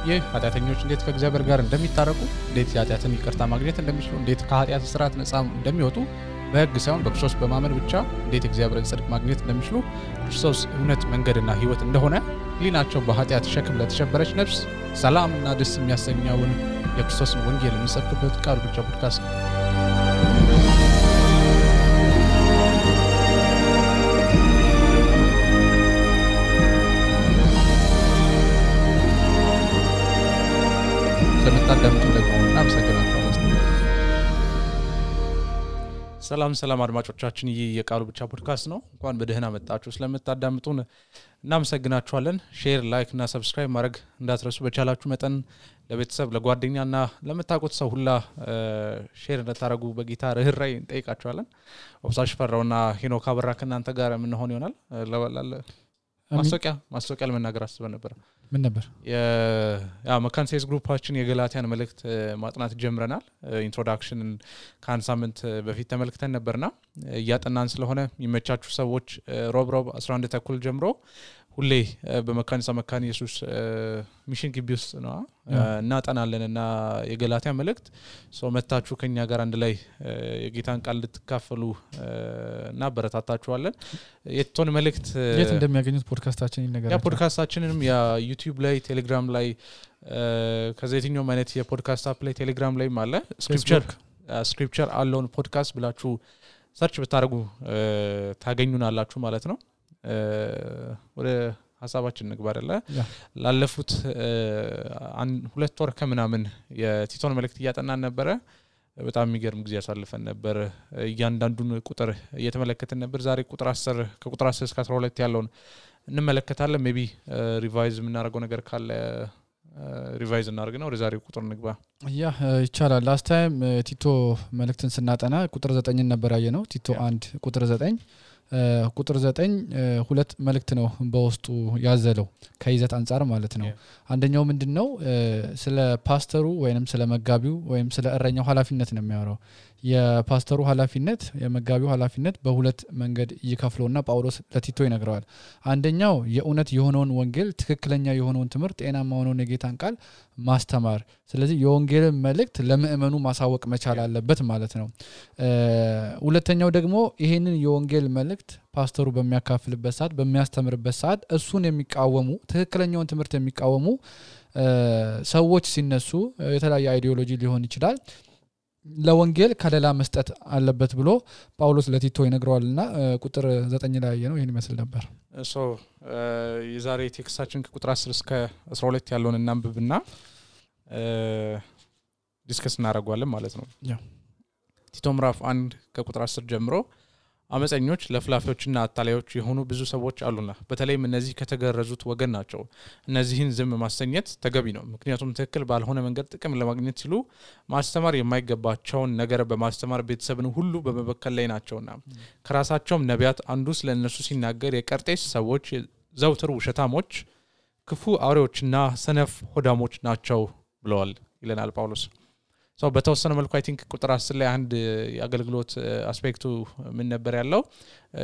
ይህ ኃጢአተኞች እንዴት ከእግዚአብሔር ጋር እንደሚታረቁ እንዴት ኃጢአትን ይቅርታ ማግኘት እንደሚችሉ እንዴት ከኃጢአት ስርዓት ነፃ እንደሚወጡ በሕግ ሳይሆን በክርስቶስ በማመን ብቻ እንዴት እግዚአብሔርን ጽድቅ ማግኘት እንደሚችሉ ክርስቶስ እውነት መንገድና ሕይወት እንደሆነ ሊናቸው በኃጢአት ሸክም ለተሸበረች ነፍስ ሰላምና ደስ የሚያሰኘውን የክርስቶስን ወንጌል የሚሰብክበት ቃል ብቻ ፖድካስት ነው። ስለምታዳምጡ ደግሞ እናመሰግናችኋለን። ሰላም አድማጮቻችን፣ ይህ የቃሉ ብቻ ፖድካስት ነው። እንኳን በደህና መጣችሁ። ስለምታዳምጡን እናመሰግናችኋለን። ሼር፣ ላይክ እና ሰብስክራይብ ማድረግ እንዳትረሱ። በቻላችሁ መጠን ለቤተሰብ ለጓደኛና ለምታውቁት ሰው ሁላ ሼር እንድታደርጉ በጌታ ርህራሄ እንጠይቃችኋለን። ኦብሳሽ ፈራውና ሄኖክ አበራ ከእናንተ ጋር የምንሆን ይሆናል። ማስታወቂያ ለመናገር አስበን ነበር። ምን ነበር? መካን ሴልስ ግሩፓችን የገላትያን መልእክት ማጥናት ጀምረናል። ኢንትሮዳክሽንን ከአንድ ሳምንት በፊት ተመልክተን ነበርና እያጠናን ስለሆነ የሚመቻችሁ ሰዎች ሮብ 11 ተኩል ጀምሮ ሁሌ በመካኒሳ መካን ኢየሱስ ሚሽን ግቢ ውስጥ ነው እናጠናለንና የገላትያ መልእክት መታችሁ ከኛ ጋር አንድ ላይ የጌታን ቃል ልትካፈሉ እና በረታታችኋለን። የቶን መልእክት የት እንደሚያገኙት ፖድካስታችን ይነገራል። ያ ፖድካስታችንንም ያ ዩቲዩብ ላይ ቴሌግራም ላይ ከዘይትኛው ማለት የፖድካስት አፕ ላይ ቴሌግራም ላይ አለ። ስክሪፕቸር አለውን ፖድካስት ብላችሁ ሰርች ብታደርጉ ታገኙናላችሁ ማለት ነው። ወደ ሐሳባችን ንግባርለ ላለፉት 2 ወር ከምናምን የቲቶን መልእክት እያጠናን ነበር። በጣም የሚገርም ጊዜ ያሳልፈን ነበር። እያንዳንዱን ቁጥር እየተመለከተን ነበር። ዛሬ ከቁጥር 10 እስከ 12 ያለውን እንመለከታለን። ሜቢ ሪቫይዝ የምናደርገው ነገር ካለ ሪቫይዝ እናደርግና ወደ ዛሬው ቁጥር ንግባ። ይቻላል። ላስት ታይም ቲቶ መልእክትን ስናጠና ቁጥር 9 ነበር ያየነው። ቲቶ 1 ቁጥር 9 ቁጥር 9 ሁለት መልእክት ነው በውስጡ ያዘለው ከይዘት አንፃር ማለት ነው። አንደኛው ምንድነው? ስለ ፓስተሩ ወይንም ስለ መጋቢው ወይንም ስለ እረኛው ኃላፊነት ነው የሚያወራው። የፓስተሩ ኃላፊነት የመጋቢው ኃላፊነት በሁለት መንገድ ይከፍለውና ጳውሎስ ለቲቶ ይነግረዋል። አንደኛው የእውነት የሆነውን ወንጌል ትክክለኛ የሆነውን ትምህርት ጤናማ የሆነውን የጌታን ቃል ማስተማር፣ ስለዚህ የወንጌልን መልእክት ለምእመኑ ማሳወቅ መቻል አለበት ማለት ነው። ሁለተኛው ደግሞ ይሄንን የወንጌል መልእክት ፓስተሩ በሚያካፍልበት ሰዓት በሚያስተምርበት ሰዓት እሱን የሚቃወሙ ትክክለኛውን ትምህርት የሚቃወሙ ሰዎች ሲነሱ የተለያየ አይዲዮሎጂ ሊሆን ይችላል ለወንጌል ከለላ መስጠት አለበት ብሎ ጳውሎስ ለቲቶ ይነግረዋልና ቁጥር 9 ላይ ነው ይሄን ይመስል ነበር። የዛሬ ቴክስታችን ከቁጥር 10 እስከ 12 ያለውን እናንብብና ዲስከስ እናደርጋለን ማለት ነው። ቲቶ ምዕራፍ 1 ከቁጥር 10 ጀምሮ አመፀኞች ለፍላፊዎችና አታላዮች የሆኑ ብዙ ሰዎች አሉና በተለይም እነዚህ ከተገረዙት ወገን ናቸው። እነዚህን ዝም ማሰኘት ተገቢ ነው፣ ምክንያቱም ትክክል ባልሆነ መንገድ ጥቅም ለማግኘት ሲሉ ማስተማር የማይገባቸውን ነገር በማስተማር ቤተሰብን ሁሉ በመበከል ላይ ናቸውና ከራሳቸውም ነቢያት አንዱ ስለነሱ ሲናገር የቀርጤስ ሰዎች ዘውትር ውሸታሞች፣ ክፉ አውሬዎችና ሰነፍ ሆዳሞች ናቸው ብለዋል ይለናል ጳውሎስ። በተወሰነ መልኩ አይ ቲንክ ቁጥር 10 ላይ አንድ የአገልግሎት አስፔክቱ ምን ነበር ያለው?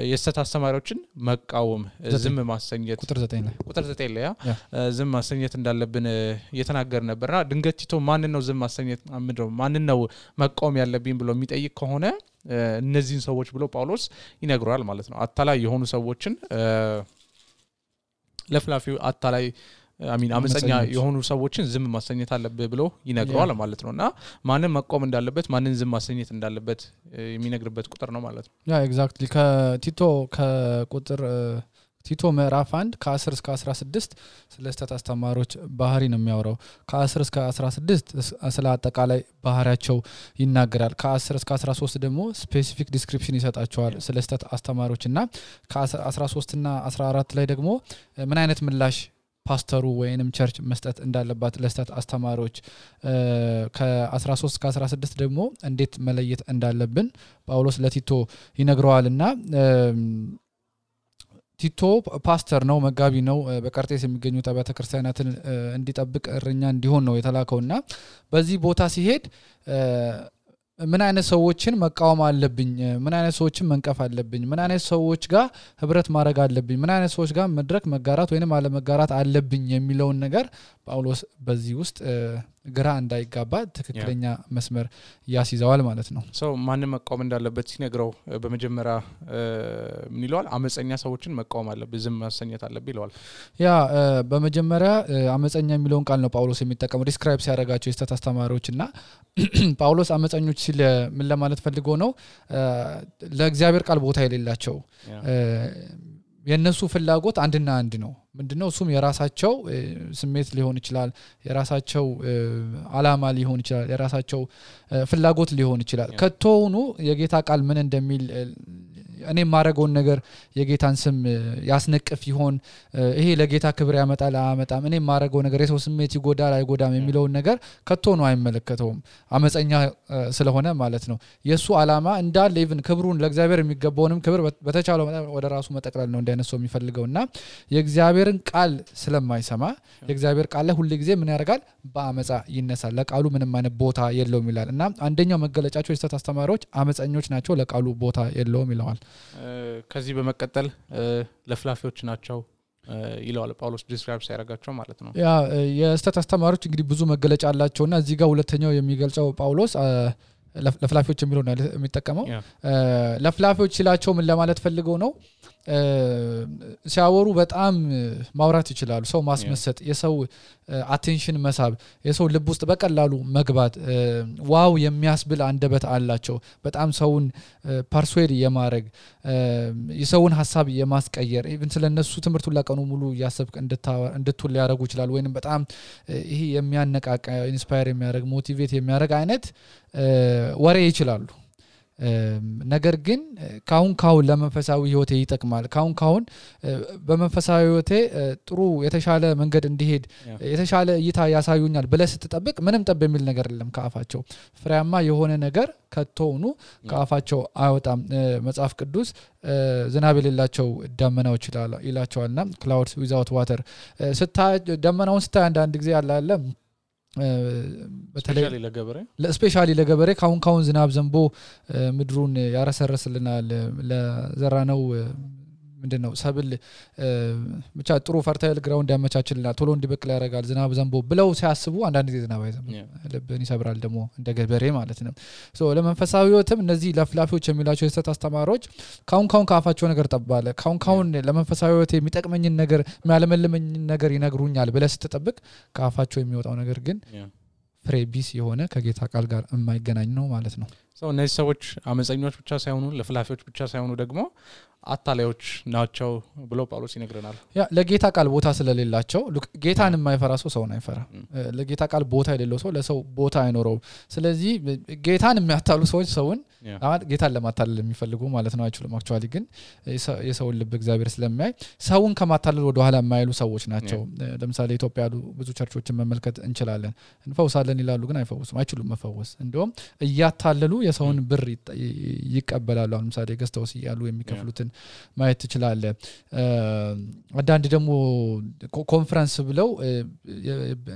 የሐሰት አስተማሪዎችን መቃወም፣ ዝም ማሰኘት። ቁጥር 9 ላይ ዝም ማሰኘት እንዳለብን እየተናገር ነበርና ድንገት ቲቶ ማን ነው ዝም ማሰኘት ማን ነው መቃወም ያለብኝ ብሎ የሚጠይቅ ከሆነ እነዚህን ሰዎች ብሎ ጳውሎስ ይነግራል ማለት ነው። አታላይ የሆኑ ሰዎችን ለፍላፊው አታላይ አመፀኛ የሆኑ ሰዎችን ዝም ማሰኘት አለበት ብሎ ይነግራል ማለት ነውና ማንን መቆም እንዳለበት ማንን ዝም ማሰኘት እንዳለበት የሚነግርበት ቁጥር ነው ማለት ነው። ኤግዛክትሊ ከቲቶ ከቁጥር ቲቶ ምዕራፍ 1 ከ10 እስከ 16 ስለ ስተት አስተማሪዎች ባህሪ ነው የሚያወራው። ከ10 እስከ 16 ስለ አጠቃላይ ባህሪያቸው ይናገራል። ከ10 እስከ 13 ደግሞ ስፔሲፊክ ዲስክሪፕሽን ይሰጣቸዋል ስለ ስተት አስተማሪዎችና ከ13 እና 14 ላይ ደግሞ ምን አይነት ምላሽ ፓስተሩ ወይንም ቸርች መስጠት እንዳለባት ለስተት አስተማሪዎች ከ13 እስከ 16 ደግሞ እንዴት መለየት እንዳለብን ጳውሎስ ለቲቶ ይነግረዋልና ቲቶ ፓስተር ነው፣ መጋቢ ነው። በቀርጤስ የሚገኙ አብያተ ክርስቲያናትን እንዲጠብቅ እረኛ እንዲሆን ነው የተላከውና በዚህ ቦታ ሲሄድ ምን አይነት ሰዎችን መቃወም አለብኝ ምን አይነት ሰዎችን መንቀፍ አለብኝ ምን አይነት ሰዎች ጋር ህብረት ማድረግ አለብኝ ምን አይነት ሰዎች ጋር መድረክ መጋራት ወይንም አለ መጋራት አለብኝ የሚለውን ነገር ጳውሎስ በዚህ ውስጥ ግራ እንዳይጋባ ትክክለኛ መስመር ያስይዘዋል ማለት ነው ሰው ማን መቃወም እንዳለበት ሲነግረው በመጀመሪያ ምን ይለዋል አመፀኛ ሰዎችን መቃወም አለበት ዝም ማሰኘት አለበት ይለዋል ያ በመጀመሪያ አመፀኛ የሚለውን ቃል ነው ጳውሎስ የሚጠቀመው ዲስክራይብ ሲያደርጋቸው የስተት አስተማሪዎችና ጳውሎስ አመፀኞች ሲል ምን ለማለት ፈልጎ ነው ለእግዚአብሔር ቃል ቦታ የሌላቸው የነሱ ፍላጎት አንድና አንድ ነው ምንድነው እሱም የራሳቸው ስሜት ሊሆን ይችላል የራሳቸው አላማ ሊሆን ይችላል የራሳቸው ፍላጎት ሊሆን ይችላል ከቶውኑ የጌታ ቃል ምን እንደሚል እኔ ማረጋውን ነገር የጌታን ስም ያስነቅፍ ይሆን ይሄ ለጌታ ክብር ያመጣል አመጣም እኔ ማረጋው ነገር የሰው ስሜት ይጎዳል አይጎዳም የሚለው ነገር ከቶውኑ አይመለከተውም አመፀኛ ስለሆነ ማለት ነው የሱ አላማ እንዳለ ኢቭን ክብሩን ለእግዚአብሔር የሚገባውንም ክብር በተቻለው ወደ ራሱ መጠቅለል ነው እንደነሰው የሚፈልገውና የእግዚአብሔርን ቃል ስለማይሰማ የእግዚአብሔር ቃል ላይ ሁሉ ጊዜ ምን ያደርጋል በአመፃ ይነሳል ለቃሉ ምንም አይነት ቦታ የለውም ይላል እና አንደኛው መገለጫቸው የስተት አስተማሪዎች አመፀኞች ናቸው ለቃሉ ቦታ የለውም ይላል ከዚህ በመቀጠል ለፍላፊዎች ናቸው ይላል ጳውሎስ ዲስክራይብ ሲያደርጋቸው ማለት ነው ያ የስተት አስተማሪዎች እንግዲህ ብዙ መገለጫ አላቸውና እዚህ ጋር ሁለተኛው የሚገልጸው ጳውሎስ ለፍላፊዎች የሚለው ነው የሚጠቀመው ለፍላፊዎች ሲላቸው ምን ለማለት ፈልገው ነው ሲያወሩ በጣም ማውራት ይችላሉ ሰው ማስመሰጥ የሰው አቴንሽን መሳብ የሰው ልብ ውስጥ በቀላሉ መግባት ዋው የሚያስብል አንደበት አላቸው በጣም ሰውን ፐርሱዌድ የማድረግ የሰውን ሐሳብ የማስቀየር ኢቭን ስለነሱ ትምርቱ ለቀኑ ሙሉ ያሰብክ እንድትውል ያደርጉ ይችላል ወይንም በጣም ይሄ የሚያነቃቃ ኢንስፓየር የሚያደርግ ሞቲቬት የሚያደርግ አይነት ወሬ ይችላሉ ነገር ግን ካሁን ለመንፈሳዊ ህይወቴ ይጠቅማል ካሁን በመንፈሳዊ ህይወቴ ጥሩ የተሻለ መንገድ እንዲሄድ የተሻለ እይታ ያሳዩኛል ብለ ስትጠብቅ ምንም ጠብ የሚል ነገር የለም ካፋቸው ፍሬያማ የሆነ ነገር ከቶውኑ ካፋቸው አይወጣም መጽሐፍ ቅዱስ ዝናብ የሌላቸው ደመናዎች ይላቸዋልና clouds without water ደመናውን ስታይ አንድ ጊዜ አለ በተለይ ለስፔሻሊ ለገበሬ ካሁን ዝናብ ዘንቦ ምድሩን ያረሰረስልናል ለዘራነው ምንድነው ሰብል ብቻ ጥሩ ፈርታይል ግራውንድ ያመቻችልናል ቶሎ እንዲበቅል ያደርጋል ዝናብ ዘንቦ ብለው ሲያስቡ አንዳንድ ጊዜ ዝናብ አይዘንብ ልብን ይሰብራል ደሞ እንደ ገበሬ ማለት ነው ሶ ለመንፈሳዊ ህይወትም እነዚህ ለፍላፊዎች የሚላቸው የስተት አስተማሪዎች ካሁን ካፋቸው ነገር ጠባለ ካሁን ለመንፈሳዊ ህይወት የሚጠቅመኝን ነገር የሚያለመልመኝን ነገር ይነግሩኛል ብለ ስትጠብቅ ካፋቸው የሚወጣው ነገር ግን ፍሬ ቢስ የሆነ ከጌታ ቃል ጋር የማይገናኝ ነው ማለት ነው ሰው እነዚህ ሰዎች አመፀኞች ብቻ ሳይሆኑ ለፍላፊዎች ብቻ ሳይሆኑ ደግሞ አታላዮች ናቸው ብሎ ጳውሎስ ይነግረናል ያ ለጌታ ቃል ቦታ ስለሌላቸው ጌታን የማይፈራ ሰው አይፈራ ለጌታ ቃል ቦታ የሌለው ሰው ለሰው ቦታ አይኖረው ስለዚህ ጌታን የሚያታሉ ሰዎች ሰውን ጌታን ለማታለል የሚፈልጉ ማለት ነው አይችሉም አክቹአሊ ግን የሰውን ልብ እግዚአብሔር ስለማይ ሰውን ከማታለል ወደ ኋላ የማይሉ ሰዎች ናቸው ለምሳሌ ኢትዮጵያ ያሉ ብዙ ቸርቾችን መመልከት እንችላለን እንፈውሳለን ይላሉ ግን አይፈውሱም አይችሉም መፈወስ እንደውም እያታለሉ የሰውን ብር ይቀበላሉ ለምሳሌ ገስተውስ ያሉ የሚከፍሉትን ማየት ትችላለ አንዳንድ ደግሞ ኮንፈረንስ ብለው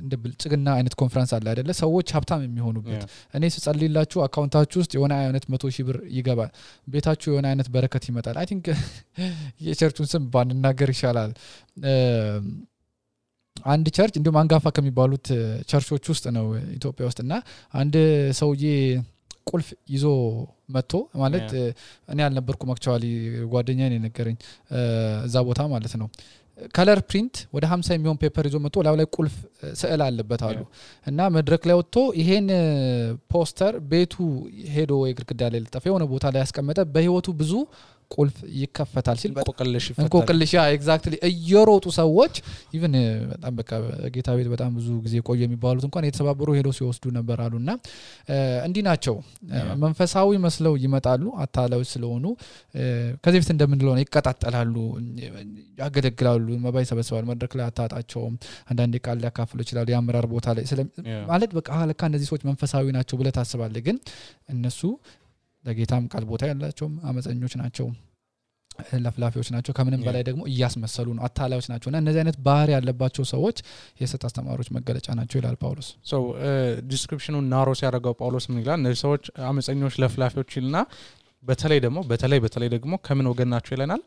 እንደ ብልጽግና አይነት ኮንፈረንስ አለ አይደለ ሰዎች ሀብታም የሚሆኑበት እኔ ስጸልይላችሁ አካውንታችሁ ውስጥ የሆነ አይነት 100,000 ብር ይገባል ቤታችሁ የሆነ አይነት በረከት ይመጣል አይ ቲንክ የቸርቹን ስም ባንናገር ይሻላል አንድ ቸርች እንደውም አንጋፋ ከሚባሉት ቸርቾች ውስጥ ነው ኢትዮጵያ ውስጥና አንድ ሰውዬ ቁልፍ ይዞ መጥቶ ማለት እኔ አልነበርኩም አክቹአሊ ጓደኛዬ ነው ነገረኝ እዛ ቦታ ማለት ነው ከለር ፕሪንት ወደ 50 የሚሆን ፔፐር ይዞ መጥቶ ላይ ቁልፍ ስዕል አለበት አሉ እና መድረክ ላይ ወጥቶ ይሄን ፖስተር ቤቱ ሄዶ የግድግዳ ላይ ለጠፈ የሆነ ቦታ ላይ ያስቀመጠ በህይወቱ ብዙ ቁልፍ ይከፈታል ሲል እንቆቅልሽ ኤግዛክትሊ እየሮጡ ሰዎች ኢቭን በጣም በቃ ጌታ ቤት በጣም ብዙ ጊዜ ቆየ የሚባሉት እንኳን የተሰባበሩ ሄዶ ሲወስዱ ነበር አሉና እንዲ ናቸው መንፈሳዊ መስለው ይመጣሉ አታላዮች ስለሆኑ ከዚህ በፊት እንደምንለው ነው ይቀጣጣላሉ ያገለግላሉ መባይ ሰበስባሉ መድረክ ላይ አታጣቸውም አንዳንዴ ቃል ያካፍሉ ይችላሉ ያምራር ቦታ ላይ ማለት በቃ ለካ እነዚህ ሰዎች መንፈሳዊ ናቸው ብለ ታስባለህ ግን እነሱ ለጌታም ቃል ቦታ ያላቸው አመፀኞች ናቸው ለፍላፊዎች ናቸው ከምንም በላይ ደግሞ እያስመሰሉ ነው አታላዮች ናቸውና እነዚህ አይነት ባህሪ ያለባቸው ሰዎች የሰት አስተማሪዎች መገለጫ ናቸው ይላል ጳውሎስ so description-ን ናሮ ሲያደርገው ጳውሎስ ምን ይላል እነዚህ ሰዎች አመፀኞች ለፍላፊዎች ይልና በተለይ ደግሞ ከምን ወገን ናቸው ይለናል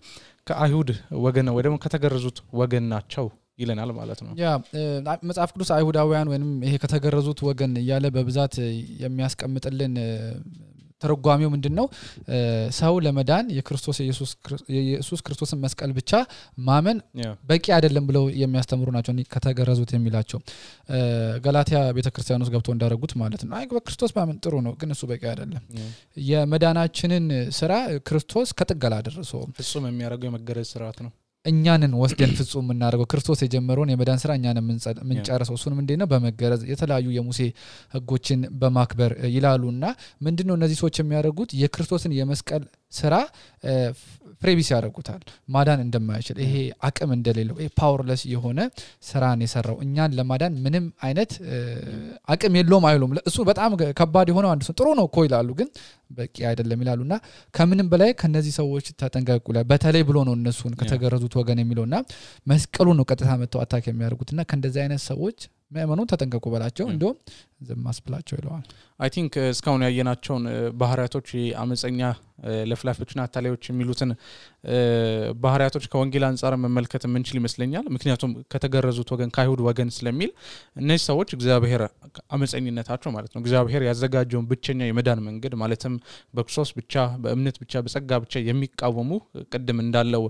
ከአይሁድ ወገን ወይ ደግሞ ከተገረዙት ወገን ናቸው ይለናል ማለት ነው ያ መጽሐፍ ቅዱስ አይሁዳውያን ወይንም ይሄ ከተገረዙት ወገን ያለ በብዛት የሚያስቀምጥልን ተረጓሚው ምንድነው ሰው ለመዳን የኢየሱስ ክርስቶስን መስቀል ብቻ ማመን በቂ አይደለም ብለው የሚያስተምሩ ናቸው ከተገረዙት የሚላቸው ገላትያ ቤተክርስቲያን ውስጥ ገብቶ እንዳረጉት ማለት ነው አይ በክርስቶስ ማመን ጥሩ ነው ግን እሱ በቂ አይደለም የመዳናችንን ስራ ክርስቶስ ከጥገላ አደረሰ ፍጹም የሚያደርገው የመገረዝ ስርዓት ነው እኛንን ወስደን ፍጹም እናደርገው ክርስቶስ የጀመረውን የመዳን ስራ እኛንን ምንጨርሰው እሱንም እንዴት ነው በመገረዝ የተለያዩ የሙሴ ህጎችን በማክበር ይላሉና ምንድነው እነዚህ ሰዎች የሚያደርጉት የክርስቶስን የመስቀል ስራ ፍሬቢስ ያደርጉታል ማዳን እንደማይችል ይሄ አቅም እንደሌለው ይሄ ፓወርለስ የሆነ ስራን የሰራው እኛን ለማዳን ምንም አይነት አቅም የለውም አይሉም እሱ በጣም ከባድ የሆነው አንዱ ጥሩ ነው እኮ ይላሉ ግን በቂ አይደለም ይላሉና ከምንም በላይ ከነዚህ ሰዎች ተጠንቀቁ በተለይ ብሎ ነው እነሱን ከተገረዙት ወገን የሚለውና መስቀሉ ነው ቀጥታ መተው አታክ የሚያደርጉትና ከእንደዚህ አይነት ሰዎች ማመኑ ተጠንቀቁ በላቸው እንደው ዘማስብላቸው ይለዋል አይ ቲንክ እስካሁን ያየናቸውን ባህሪያቶች አመፀኛ ለፍላፊዎችና አታላዮች የሚሉትን ባህሪያቶች ከወንጌል አንፃር መመልከት ምንችል ይመስለኛል ምክንያቱም ከተገረዙት ወገን ከአይሁድ ወገን ስለሚል እነዚህ ሰዎች እግዚአብሔር አመፀኝነታቸው ማለት ነው እግዚአብሔር ያዘጋጀውን ብቸኛ የመዳን መንገድ ማለትም በክርስቶስ ብቻ በእምነት ብቻ በጸጋ ብቻ የሚቃወሙ ቅድም እንዳለው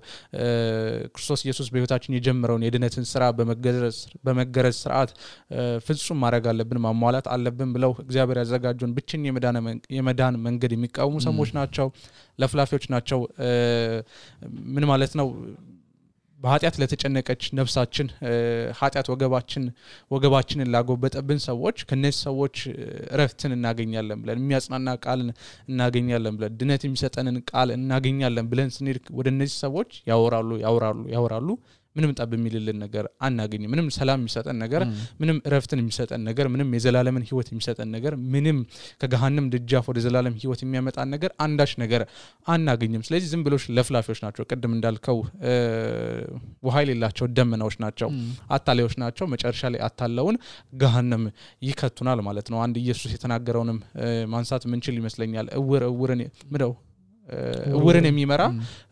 ክርስቶስ ኢየሱስ በህይወታችን የጀመረውን የድነትን ስራ በመገረዝ ስርዓት ፍጹም ማድረግ አለብን ማሟላት አለብን ብለው እግዚአብሔር ያዘጋጀውን ብቸኛ የመዳን መንገድ የሚቃወሙ ሰዎች ናቸው ለፍላፊዎች ናቸው ምን ማለት ነው በኃጢአት ለተጨነቀች ነፍሳችን ኃጢአት ወገባችንን ላጎበጠብን ሰዎች ከነዚህ ሰዎች ረፍትን እናገኛለን ብለን የሚያጽናና ቃል እናገኛለን ብለን ድነት የሚሰጠንን ቃል እናገኛለን ብለን ስንሄድ ወደ እነዚህ ሰዎች ያወራሉ ምንም ጠብ የሚልልን ነገር አናገኝ ምንም ሰላም የሚሰጠን ነገር ምንም ረፍትን የሚሰጠን ነገር ምንም የዘላለምን ህይወት የሚሰጠን ነገር ምንም ከገሃነም ደጃፍ ወደ ዘላለም ህይወት የሚያመጣን ነገር አንዳች ነገር አናገኝም ስለዚህ ዝም ብሎሽ ለፍላፊዎች ናቸው ቅድም እንዳልከው ውሃ የሌላቸው ደመናዎች ናቸው አታላዮች ናቸው መጨረሻ ላይ አታለውን ገሃነም ይከቱናል ማለት ነው አንድ ኢየሱስ የተናገረውንም ማንሳት ምንችል ይመስለኛል እውርን የሚመራ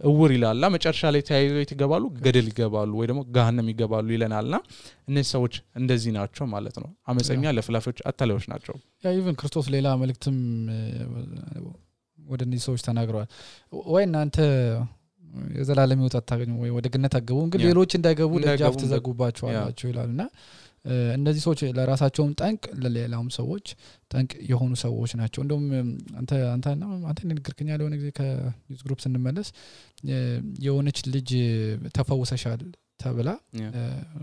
እውር ይላልና መጨረሻ ላይ ተያይዘው ይገባሉ ገደል ይገባሉ ወይ ደግሞ ገሃነም ይገባሉ ይለናልና እነዚህ ሰዎች እንደዚህ ናቸው ማለት ነው አመፀኛ ለፍላፊዎች አታላዮች ናቸው ያ ኢቭን ክርስቶስ ሌላ መልእክትም ወደ እነዚህ ሰዎች ተናግረዋል ወይ እናንተ የዘላለም ህይወት አታገኙ ወይ ወደ ገነት አገቡ ግን ሌሎች እንዳይገቡ ደጃፍ ተዘጉባቸዋላችሁ ይላልና እነዚህ ሰዎች ለራሳቸውም ጠንቅ ለሌላውም ሰዎች ጠንቅ የሆኑ ሰዎች ናቸው እንደውም አንተ ንግግርከኛ ለሆነ ጊዜ ከዩዝ ግሩፕ ስንመለስ የሆነች ልጅ ተፈውሰሻል ተብላ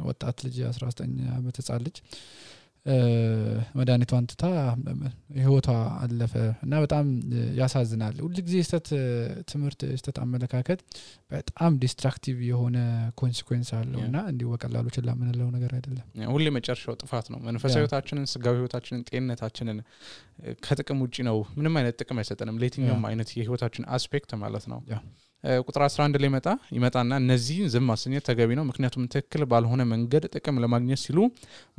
ወጣት ልጅ 19 ዓመት ህፃን ልጅ መድኃኒቷን ትታ ህይወቷ አለፈ እና በጣም ያሳዝናል ሁሉ ጊዜ ትምህርት አመለካከት በጣም ዲስትራክቲቭ የሆነ ኮንሲኩዌንስ አለውና እንዲው በቀላሉ ችላ ምንለው ነገር አይደለም ሁሉ መጨረሻው ጥፋት ነው መንፈሳዊ ህይወታችንን ስጋዊ ህይወታችንን ጤንነታችንን ከጥቅም ውጪ ነው ምንም አይነት ጥቅም አይሰጠንም ለየትኛውም አይነት የህይወታችን አስፔክት ማለት ነው ቁጥር 11 ላይ ይመጣና እነዚህ ዝም ማሰኘት ተገቢ ነው ምክንያቱም ትክክል ባልሆነ መንገድ ጥቅም ለማግኘት ሲሉ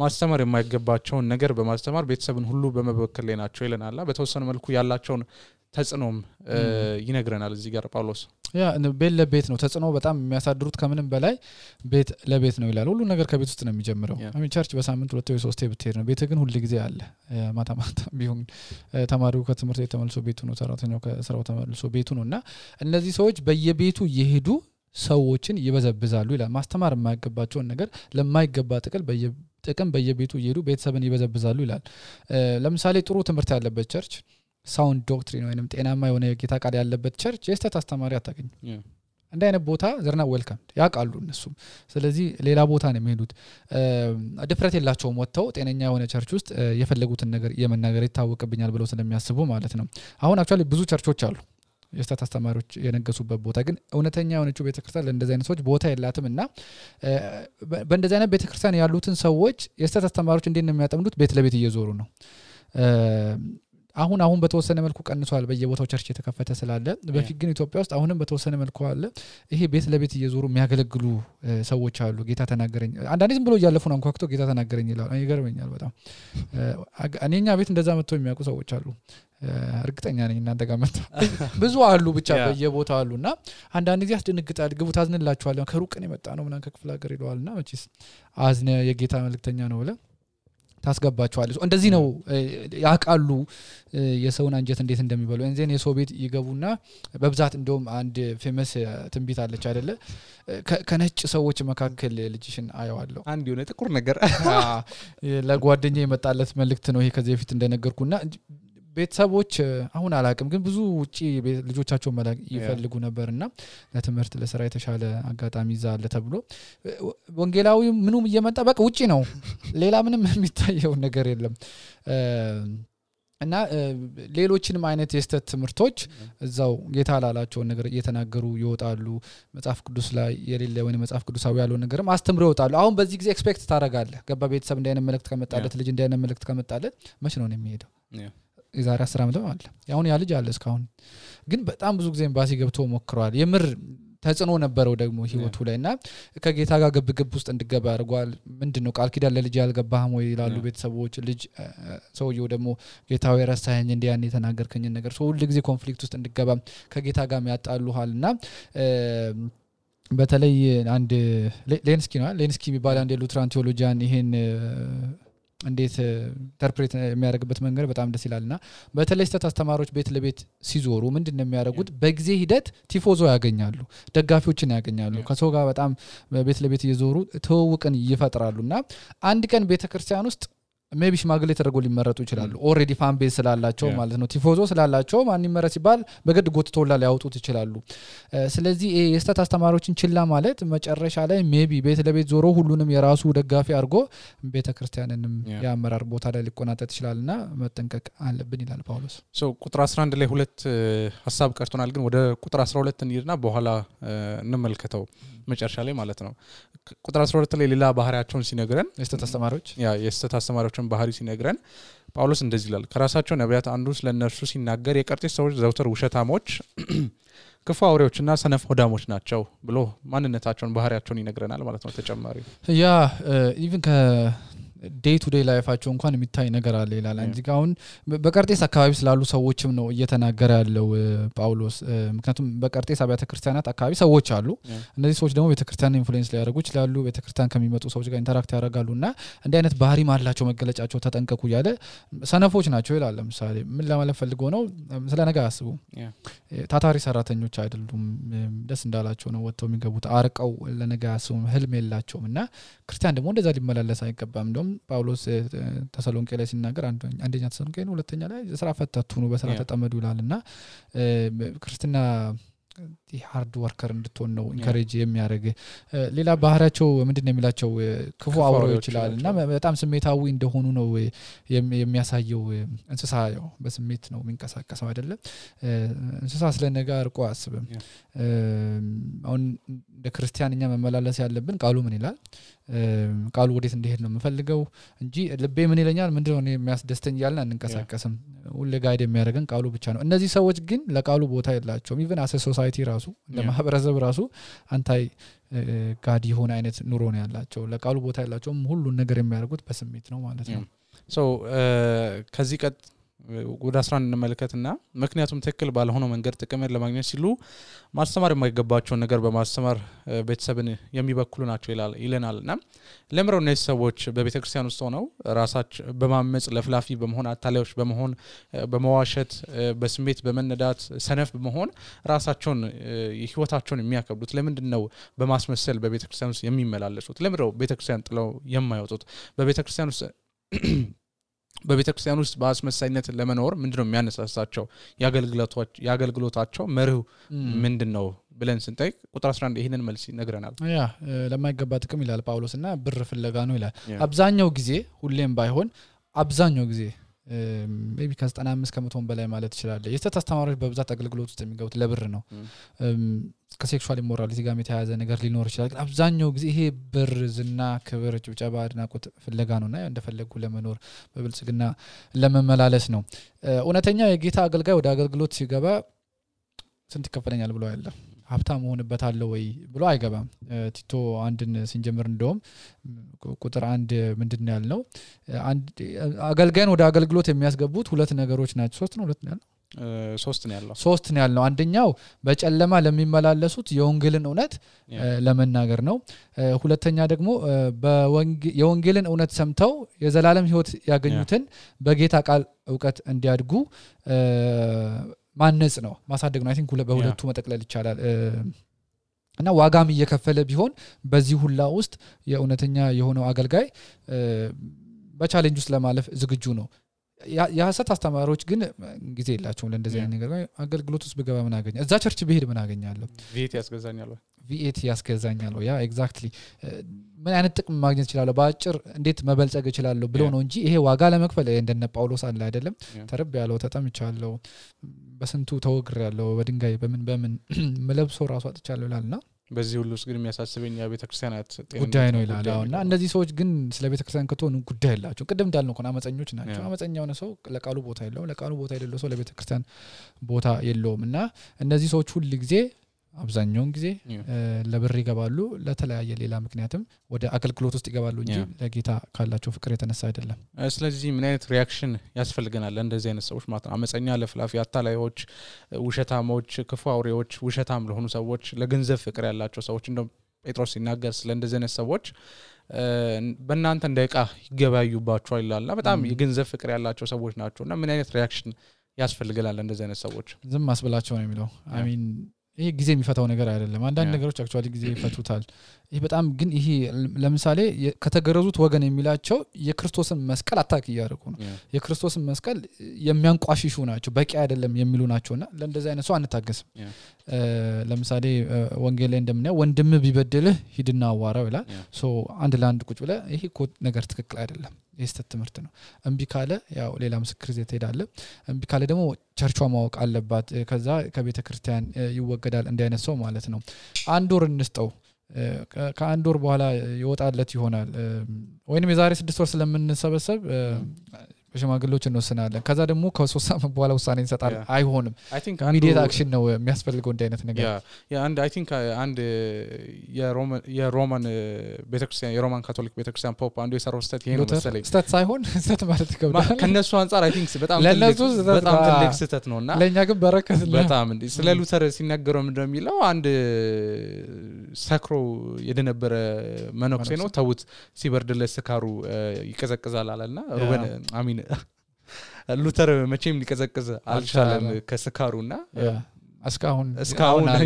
ማስተማር የማይገባቸውን ነገር በማስተማር ቤተሰብን ሁሉ በመበከል ላይ ናቸው ይለናል በተወሰነ መልኩ ያላቸውን ተጽኖም ይነግረናል እዚህ ጋር ጳውሎስ ያ ቤት ለቤት ነው ተጽኖ በጣም የሚያሳድሩት ከምንም በላይ ቤት ለቤት ነው ይላል ሁሉ ነገር ከቤት ውስጥ ነው የሚጀምረው ቸርች በሳምንት 2 ወይ 3 ብትሄድ ነው ቤት ግን ሁሉ ጊዜ አለ ማታ ቢሆን ተማሪው ከትምህርት ቤት ተመልሶ ቤቱ ነው ሰራተኛው ከስራው ተመልሶ ቤቱ ነውና እነዚህ ሰዎች በየቤቱ ይሄዱ ሰዎችን ይበዘብዛሉ ይላል ማስተማር የማይገባቸውን ነገር ለማይገባ ጥቅም በየቤቱ ይሄዱ ቤተሰብን ይበዘብዛሉ ይላል ለምሳሌ ጥሩ ትምህርት ያለበት ቸርች ሳውንድ ዶክትሪን ወይንም ጤናማ የሆነ የጌታ ቃል ያለበት ቸርች የስተት አስተማሪ አታገኙ እንደ አይነት ቦታ ዘርና ዌልካም ያቃሉ እነሱ ስለዚህ ሌላ ቦታ ነው የሚሄዱት ድፍረት የላቸውም ወጥተው ጤነኛ የሆነ ቸርች ውስጥ የፈለጉትን ነገር የመናገር ይታወቅብኛል ብለው ስለሚያስቡ ማለት ነው አሁን አክቹአሊ ብዙ ቸርቾች አሉ የስተት አስተማሪዎች የነገሱበት ቦታ ግን እውነተኛ የሆነችው ቤተክርስቲያን ለእንደዚህ አይነት ሰዎች ቦታ የላትምና በእንደዚህ አይነት ቤተክርስቲያን ያሉትን ሰዎች የስተት አስተማሪዎች እንዴት ነው የሚያጠምዱት ቤት ለቤት እየዞሩ ነው አሁን በተወሰነ መልኩ ቀንሷል በየቦታው ቸርች የተከፈተ ስላለ በፊት ግን ኢትዮጵያ ውስጥ አሁንም በተወሰነ መልኩ አለ ይሄ ቤት ለቤት እየዞሩ የሚያገለግሉ ሰዎች አሉ ጌታ ተናገረኝ አንዳንዴ ዝም ብሎ እያለፉ ነው አንኳክቶ ጌታ ተናገረኝ ይላል ይገርመኛል በጣም እኔኛ ቤት እንደዛ መጥተው የሚያውቁ ሰዎች አሉ እርግጠኛ ነኝ እናንተ ጋር መጣ ብዙ አሉ ብቻ በየቦታው አሉና አንዳንድ ጊዜ ያስደነግጣል ግቡ ታዝንላችኋል ከሩቅ ነው የመጣ ነው ምናን ከክፍለ ሀገር ይለዋልና መቼስ አዝነ የጌታ መልእክተኛ ነው ብለ ታስገባቸዋል እንደዚህ ነው ያቃሉ የሰውን አንጀት እንዴት እንደሚበሉ እንዘን የሰው ቤት ይገቡና በብዛት እንደውም አንድ ፌመስ ትንቢት አለች አይደለ ከነጭ ሰዎች መካከል ልጅሽን አየዋለሁ አንድ የሆነ ጥቁር ነገር ለጓደኛዬ የመጣለት መልእክት ነው ይሄ ከዚህ በፊት እንደነገርኩና ቤተሰቦች አሁን አላቅም ግን ብዙ ውጪ ልጆቻቸው መላክ ይፈልጉ ነበርና ለትምህርት ለስራ የተሻለ አጋጣሚ ይዛል ተብሎ ወንጌላዊ ምኑም እየመጣ በቃ ውጪ ነው ሌላ ምንም የሚታየው ነገር የለም እና ሌሎችንም አይነት የስተት ትምህርቶች እዛው ጌታ ላላቸው ነገር እየተናገሩ ይወጣሉ መጽሐፍ ቅዱስ ላይ የሌለ ወይ መጽሐፍ ቅዱሳዊ ያለው ነገርም አስተምረው ይወጣሉ አሁን በዚህ ጊዜ ኤክስፔክት ታረጋለህ ገባ ቤተሰብ እንዳይነ መልእክት ከመጣለት ልጅ እንዳይነ መልእክት ከመጣለት መች ነው የሚሄደው የዛሬ 10 ዓመት ማለት ያሁን ያ ልጅ አለ እስካሁን ግን በጣም ብዙ ጊዜ ኤምባሲ ገብቶ ሞክሯል የምር ተጽኖ ነበረው ደግሞ ህይወቱ ላይና ከጌታ ጋር ግብግብ ውስጥ እንድገባ አድርጓል ምንድነው ቃል ኪዳን ለልጅ ያልገባህም ወይ ይላሉ ቤተሰቦች ልጅ ሰውየው ደግሞ ጌታው የረሳኸኝ እንዲያን የተናገርከኝ ነገር ሰው ሁሉ ጊዜ ኮንፍሊክት ውስጥ እንድገባ ከጌታ ጋር ያጣሉሃልና በተለይ አንድ ሌንስኪ የሚባል አንድ ሉትራን ቴዎሎጂያን ይሄን እንዴት ኢንተርፕሬት የሚያደርግበት መንገድ በጣም ደስ ይላልና በተለይ ስተት አስተማሪዎች ቤት ለቤት ሲዞሩ ምንድነው የሚያደርጉት በጊዜ ሂደት ቲፎዞ ያገኛሉ ደጋፊዎችን ያገኛሉ ከሰው ጋር በጣም ቤት ለቤት እየዞሩ ተወውቀን ይፈጥራሉና አንድ ቀን ቤተክርስቲያን ውስጥ ሜቢ ሽማግሌ ተደርጎ ሊመረጡ ይችላሉ ኦሬዲ ፋን ቤዝ ስላላቸው ማለት ነው ቲፎዞ ስላላቸው ማን ይመረጥ ሲባል በግድ ጎትቶላ ሊያወጡት ይችላሉ ስለዚህ የስተት አስተማሪዎችን ችላ ማለት መጨረሻ ላይ ሜቢ ቤት ለቤት ዞሮ ሁሉንም የራሱ ደጋፊ አድርጎ ቤተክርስቲያንንም ያመራር ቦታ ላይ ሊቆናጠጥ ይችላልና መጠንቀቅ አለብን ይላል ጳውሎስ ቁጥር 11 ላይ ሁለት ሐሳብ ቀርቶናል ግን ወደ ቁጥር 12 እንይርና በኋላ እንመልከተው መጨረሻ ላይ ማለት ነው ቁጥር 12 ላይ ሌላ ባህሪያቸውን ሲነግረን የስተት አስተማሪዎችን ባህሪ ሲነግረን ጳውሎስ እንደዚህ ይላል ከራሳቸው ነቢያት አንዱ ስለነርሱ ሲናገር የቀርጤስ ሰዎች ዘውትር ውሸታሞች ክፉ አውሬዎችና ሰነፍ ሆዳሞች ናቸው ብሎ ማንነታቸውን ባህሪያቸውን ይነግረናል ማለት ነው ተጨማሪ ኢቭን ዴይ ቱ ዴይ ላይፋቸው እንኳን የሚታይ ነገር አለ ይላል እንጂ አሁን በቀርጤስ አካባቢ ስላሉ ሰዎችም ነው እየተናገረ ያለው ጳውሎስ ምክንያቱም በቀርጤስ አብያተ ክርስቲያናት አካባቢ ሰዎች አሉ እነዚህ ሰዎች ደግሞ ቤተክርስቲያን ኢንፍሉዌንስ ሊያደርጉ ይችላሉ ቤተክርስቲያን ከሚመጡ ሰዎች ጋር ኢንተራክት ያደርጋሉና እንዲህ አይነት ባህሪ ማላቸው መገለጫቸው ተጠንቀቁ ያለ ሰነፎች ናቸው ይላል ለምሳሌ ምን ለማለት ፈልጎ ነው ስለ ነገ አስቡ ታታሪ ሰራተኞች አይደሉም ደስ እንዳላቸው ነው ወጥተው የሚገቡት አርቀው ለነገ አስቡ ህልም የላቸውምና ክርስቲያን ደግሞ እንደዛ ሊመላለስ አይገባም እንደውም ጳውሎስ ተሰሎንቄ ላይ ሲናገር አንደኛ ተሰሎንቄ ነው ሁለተኛ ላይ ስራ ፈታቱ ነው በስራ ተጠመዱ ይላልና ክርስቲና ሃርድ ወርከር እንድትሆን ነው ኢንከሬጅ የሚያደርግ ሌላ ባህሪያቸው ምንድነው የሚላቸው ክፉ አውሬዎች ይላልና በጣም ስሜታዊ እንደሆኑ ነው የሚያሳየው እንስሳ ያው በስሜት ነው የሚንቀሳቀሰው አይደለም እንስሳ ስለነገ አርቆ አስበም አሁን እንደ ክርስቲያንኛ መመላለስ ያለብን ቃሉ ምን ይላል ቃሉ ወዴት እንደሄድ ነው የምፈልገው እንጂ ልቤ ምን ይለኛል ምንድነው የሚያስደስተኝ ያልና እንንቀሳቀስም ሁሉ ጋይድ የሚያደርገን ቃሉ ብቻ ነው እነዚህ ሰዎች ግን ለቃሉ ቦታ የላቸውም ኢቭን አሰ ሶሳይቲ ራሱ ለማህበረሰብ ራሱ አንታይ ጋድ ይሆን አይነት ኑሮ ነው ያላቸው ለቃሉ ቦታ ያላቸውም ሁሉ ነገር የሚያደርጉት በስሜት ነው ማለት ነው ከዚህ ቀጥ ወደ 11 እንመልከትና ምክንያቱም ትክክል ባልሆነው መንገድ ጥቅምን ለማግኘት ሲሉ ማስተማር የማይገባቸው ነገር በማስተማር ቤተሰብን የሚበክሉ ናቸው ይለናልና ለምረው እነዚህ ሰዎች በቤተክርስቲያን ውስጥ ሆነው ራሳቸው በማመጽ ለፍላፊ በመሆን አታላዮች በመሆን በመዋሸት በስሜት በመነዳት ሰነፍ በመሆን ራሳቸውን ህይወታቸውን የሚያከብዱት ለምንድነው በማስመሰል በቤተክርስቲያን ውስጥ የሚመላለሱት ለምረው ቤተክርስቲያን ጥለው የማይወጡት በቤተክርስቲያን ውስጥ በአስመሳይነት ለመኖር ምንድነው የሚያነሳሳቸው ያገልግሎታቸው መርሁ ምንድነው ብለን ስንጠይቅ ቁጥር 11 ይሄንን መልስ ይነግረናል ለማይገባ ጥቅም ይላል ጳውሎስና ብር ፍለጋ ነው ይላል አብዛኛው ጊዜ ሁሌም ባይሆን አብዛኛው ጊዜ ሜቢ ከ95% በላይ ማለት ይችላል የስተት አስተማሪዎች በብዛት አገልግሎት ውስጥ የሚገቡት ለብር ነው ከሴክሹዋል ኢሞራሊቲ ጋር የተያያዘ ነገር ሊኖር ይችላል ግን አብዛኛው ጊዜ ይሄ ብር ዝና ክብር ጭብጨባ አድናቆት ፍለጋ ነውና እንደፈለጉ ለመኖር በብልጽግና ለመመላለስ ነው እውነተኛ የጌታ አገልጋይ ወደ አገልግሎት ሲገባ ስንት ይከፈለኛል ብሎ ያለ ሀብታም ሆነበታለው ወይ ብሎ አይገባም ቲቶ አንድን ሲንጀምር እንደውም ቁጥር 1 ምንድነው ያልነው አንድ አገልጋይን ወደ አገልግሎት የሚያስገቡት ሁለት ነገሮች ናቸው ሶስት ነው ሁለት ነው ያለው ሶስት ነው ያለው አንደኛው በጨለማ ለሚመላለሱት የወንጌልን እውነት ለመናገር ነው ሁለተኛ ደግሞ የወንጌልን እውነት ሰምተው የዘላለም ህይወት ያገኙትን በጌታ ቃል ዕውቀት እንዲያድጉ ማነጽ ነው ማሳደግ ነው አይ ቲንክ በሁለቱ መጠቅለል ይቻላል እና ዋጋም እየከፈለ ቢሆን በዚህ ሁላ ውስጥ የእውነተኛ የሆነው አገልጋይ በቻሌንጅ ውስጥ ለማለፍ ዝግጁ ነው ያሰት አስተማሪዎች ግን ጊዜ የላቸውም ለእንደዚህ አይነት ነገር አገልግሎት ውስጥ በገባ ምን አገኛለሁ እዛ ቸርች ብሄድ ምን አገኛለሁ ቪኤት ያስገዛኛል ያ ኤግዛክትሊ ምን አይነት ጥቅም ማግኘት ይችላል በአጭር እንዴት መበልጸግ ይችላል ብሎ ነው እንጂ ይሄ ዋጋ ለመክፈል እንደነ ጳውሎስ አለ አይደለም ተረብ ያለው ተጠምቻለሁ በስንቱ ተወግር ያለው በድንጋይ በምን መለብሶ ራሱ አጥቻለሁ ይላልና በዚህ ሁሉ ውስጥ ግን የሚያሳስበኝ የቤተክርስቲያናት ጉዳይ ነው ይላልና እነዚህ ሰዎች ግን ስለ ቤተክርስቲያን ከተሆኑ ጉዳይ ያላቸው ቅድም እንዳልነው ኮና አመፀኞች ናቸው አመፀኛው ነው ሰው ለቃሉ ቦታ የሌለው ሰው ለቤተክርስቲያን ቦታ የለውምና እነዚህ ሰዎች ሁሉ ጊዜ አብዛኛውን ጊዜ ለብር ይገባሉ ለተለያየ ሌላ ምክንያትም ወደ አገልግሎት ውስጥ ይገባሉ እንጂ ለጌታ ካላቸው ፍቅር የተነሳ አይደለም ስለዚህ ምን አይነት ሪአክሽን ያስፈልገናል እንደዚህ አይነት ሰዎች ማለት ነው አመፀኛ ለፍላፊ አታላዮች ውሸታሞች ክፉ አውሬዎች ውሸታም ለሆኑ ሰዎች ለገንዘብ ፍቅር ያላቸው ሰዎች እንደው ጴጥሮስ ሲናገር ስለ እንደዚህ አይነት ሰዎች በእናንተ እንደቃ ይገባዩባቸዋል ይላልና በጣም የገንዘብ ፍቅር ያላቸው ሰዎች ናቸውና ምን አይነት ሪአክሽን ያስፈልገናል እንደዚህ አይነት ሰዎች ዝም ማስበላቸው ነው የሚለው አይ ሚን ይሄ ጊዜ የሚፈታው ነገር አይደለም አንዳንድ ነገሮች አክቹአሊ ጊዜ ይፈቱታል ይሄ በጣም ግን ይሄ ለምሳሌ ከተገረዙት ወገን የሚላቸው የክርስቶስን መስቀል አታክ ያደርጉ ነው የክርስቶስን መስቀል የሚያንቋሽሹ ናቸው በቂ አይደለም የሚሉ ናቸውና ለእንደዚህ አይነት ሰው አንታገስም ለምሳሌ ወንጌል ላይ እንደምናየው ወንድም ቢበድልህ ሂድና አዋራው ይላል ሶ አንድ ለአንድ ቁጭ ብለ ይሄ ነገር ትክክል አይደለም የስተት ትምህርት ነው እንቢ ካለ ያው ሌላ ምስክር ይዘህ ትሄዳለህ እንቢ ካለ ደግሞ ቸርቿ ማወቅ አለባት ከዛ ከቤተ ክርስቲያን ይወገዳል እንደ አይነት ሰው ማለት ነው አንድ ወር እንስጠው ከአንድ ወር በኋላ ይወጣለት ይሆናል ወይንም የዛሬ 6 ወር ስለምንሰበሰብ በሽማግሌዎች እንወስናለን ከዛ ደግሞ ከ3 ሳምንት በኋላ ውሳኔ እንሰጣለን አይሆንም ኢሚዲየት አክሽን ነው የሚያስፈልገው እንደ አይነት ነገር ያ አንድ አይ ቲንክ አንድ የሮማን ቤተክርስቲያን የሮማን ካቶሊክ ቤተክርስቲያን ፖፕ አንዱ የሰራው ስህተት ይሄ ነው መሰለኝ ስህተት ሳይሆን ስህተት ማለት ይከብዳል ከነሱ አንፃር አይ ቲንክ በጣም ትልቅ ስህተት ነውና ለኛ ግን በረከት ነው በጣም እንዴ ስለ ሉተር ሲናገረው ምንድነው የሚለው አንድ ሰክሮ የደነበረ መነኩሴ ነው ተውት ሲበርድለት ስካሩ ይቀዘቅዛል አለና ሩበን አሚን ሉተር መቼም ሊቀዘቅዝ አልቻለም ከስካሩና እስካሁን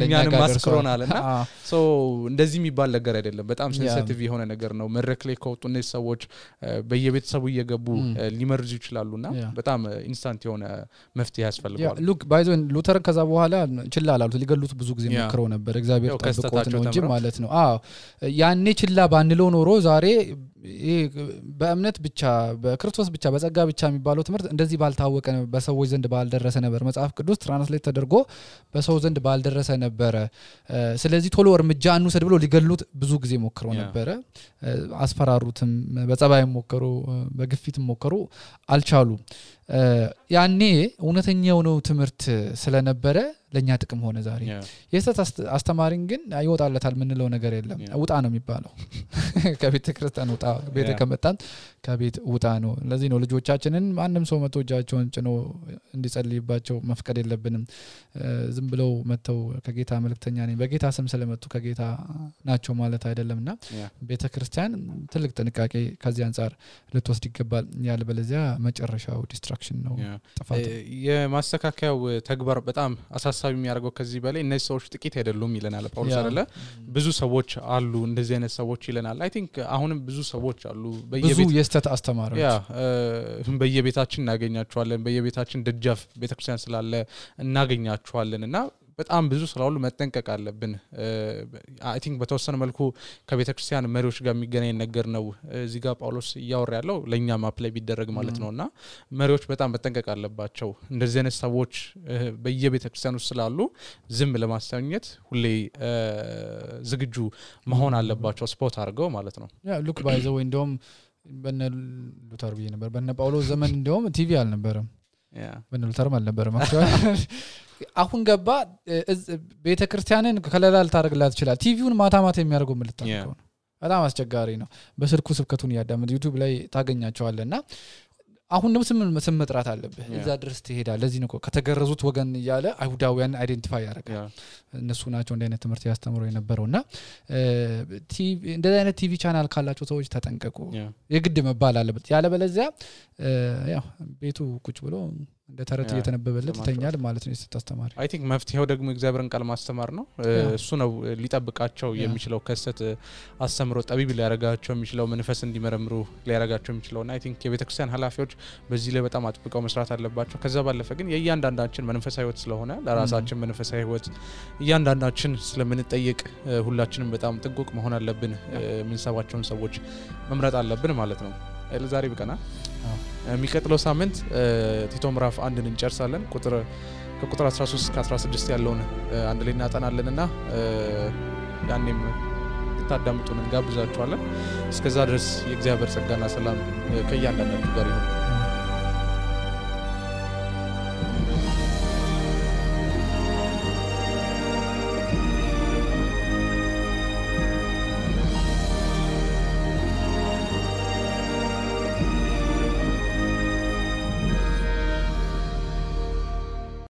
ለኛንም ማስክሮናልና ሶ እንደዚህ የሚባል ነገር አይደለም በጣም ሴንሲቲቭ የሆነ ነገር ነው መድረክ ላይ ከወጡ እነዚህ ሰዎች በየቤተሰቡ እየገቡ ሊመርዙ ይችላሉና በጣም ኢንስታንት የሆነ መፍትሄ ያስፈልጋል ሉክ ባይዞን ሉተር ከዛ በኋላ ችላ አላሉት ሊገሉት ብዙ ጊዜ ሞክረው ነበር እግዚአብሔር ተጠቆት ነው እንጂ ማለት ነው ያኔ ችላ ባንለው ኖሮ ዛሬ በእምነት ብቻ በክርስቶስ ብቻ በጸጋ ብቻ የሚባለው ትምህርት እንደዚህ ባልታወቀ በሰዎች ዘንድ ባልደረሰ ነበር መጽሐፍ ቅዱስ ትራንስሌት ተደርጎ በሰው ዘንድ ባልደረሰ ነበር ስለዚህ ቶሎ እርምጃ አንውሰድ ብሎ ሊገሉት ብዙ ጊዜ ሞክረው ነበር አስፈራሩትም በጸባይ ሞከሩ በግፊትም ሞከሩ አልቻሉ ያኔ እውነተኛው ነው ትምህርት ስለነበረ ለኛ ጥቅም ሆነ ዛሬ የሰት አስተማሪን ግን አይወጣለታል ምንለው ነገር የለም ውጣ ነው የሚባለው ከቤተ ክርስቲያን ውጣ ቤተ ከመጣን ከቤት ውጣ ነው ለዚህ ነው ልጆቻችንን ማንንም ሰው መጥቶ እጃቸውን ጭኖ እንዲጸልይባቸው መፍቀድ የለብንም ዝም ብለው መተው ከጌታ መልእክተኛ ነኝ በጌታ ስም ስለመጡ ከጌታ ናቸው ማለት አይደለምና ቤተ ክርስቲያን ትልቅ ጥንቃቄ ከዚህ አንፃር ልትወስድ ይገባል ያለበለዚያ መጨረሻው ዲስትራክሽን ነው ጥፋት የማስተካከያው ተግባር በጣም አሳሳቢ የሚያደርገው ከዚህ በላይ እነዚህ ሰዎች ጥቂት አይደሉም ይለናል ጳውሎስ አይደለ ብዙ ሰዎች አሉ እንደዚህ አይነት ሰዎች ይለናል አይ ቲንክ አሁንም ብዙ ሰዎች አሉ ብዙ የስተት አስተማሪዎች በየቤታችን እናገኛቸዋለን በየቤታችን ደጃፍ ቤተክርስቲያን ስላለ እናገኛቸዋለንና በጣም ብዙ ስላሉ መጠንቀቅ አለብን አይ ቲንክ በተወሰነ መልኩ ከቤተክርስቲያን መሪዎች ጋር የሚገናኝ ነገር ነው እዚህ ጋር ጳውሎስ ያወራ ያለው ለኛም አፕላይ ቢደረግ ማለት ነውና መሪዎች በጣም መጠንቀቅ አለባቸው እንደዚህ አይነት ሰዎች በየቤተክርስቲያኑ ስላሉ ዝም ለማስተኛት ሁሌ ዝግጁ መሆን አለባቸው ስፖት አድርገው ማለት ነው ያ ሉክ ባይ ዘ ወይ እንደውም በነ ሉተር ብዬ ነበር በነ ጳውሎስ ዘመን እንደውም ቲቪ አልነበረም በነ ሉተር አልነበረም አሁን ገባ ቤተክርስቲያንን ከለላል ታርግላት ይችላል ቲቪውን ማታ የሚያርገው ምልጣው በጣም አስቸጋሪ ነው በስልኩ ስብከቱን ያዳምጥ ዩቲዩብ ላይ ታገኛቸዋለና አሁን ደግሞ ስም መጥራት አለበት እዛ ድረስ ትሄዳለህ ለዚህ ነው ከተገረዙት ወገን ይያለ አይሁዳውያን አይደንቲፋይ ያደርጋል እነሱ ናቸው እንደ አይነት ትምህርት ያስተምሩ የነበረውና ቲቪ እንደዛ አይነት ቲቪ ቻናል ካላቸው ሰዎች ተጠንቀቁ የግድ መባል አለበት ያለ በለዚያ ያው ቤቱ ቁጭ ብሎ እንደ ተረት እየተነበበለት ተኛል ማለት ነው ተስተማሪ አይ ቲንክ መፍትሄው ደግሞ እግዚአብሔርን ቃል ማስተማር ነው እሱ ነው ሊጠብቃቸው የሚችለው ከሰት አስተምሮ ጠቢብ ሊያረጋቸው የሚችለው መንፈስ እንዲመረምሩ ሊያረጋቸው የሚችለውና አይ ቲንክ የቤተክርስቲያን ሐላፊዎች በዚህ ላይ በጣም አጥብቀው መስራት አለባቸው ከዛ ባለፈ ግን የእያንዳንዳችን መንፈሳዊ ህይወት ስለሆነ ለራሳችን መንፈሳዊ ህይወት እያንዳንዳችን ስለምንጠይቅ ሁላችንም በጣም ጥንቁቅ መሆን አለብን ምንሰባቸውን ሰዎች መምረጥ አለብን ማለት ነው ለዛሬ በቀና የሚቀጥለው ሳምንት ቲቶ ምዕራፍ 1ን እንጨርሳለን ከቁጥር 13 እስከ 16 ያለውን አንድ ላይ እናጠናለንና ያኔም ታዳምጡን እንጋብዛችኋለን እስከዛ ድረስ የእግዚአብሔር ጸጋና ሰላም ከእያንዳንዳችሁ ጋር ይሁን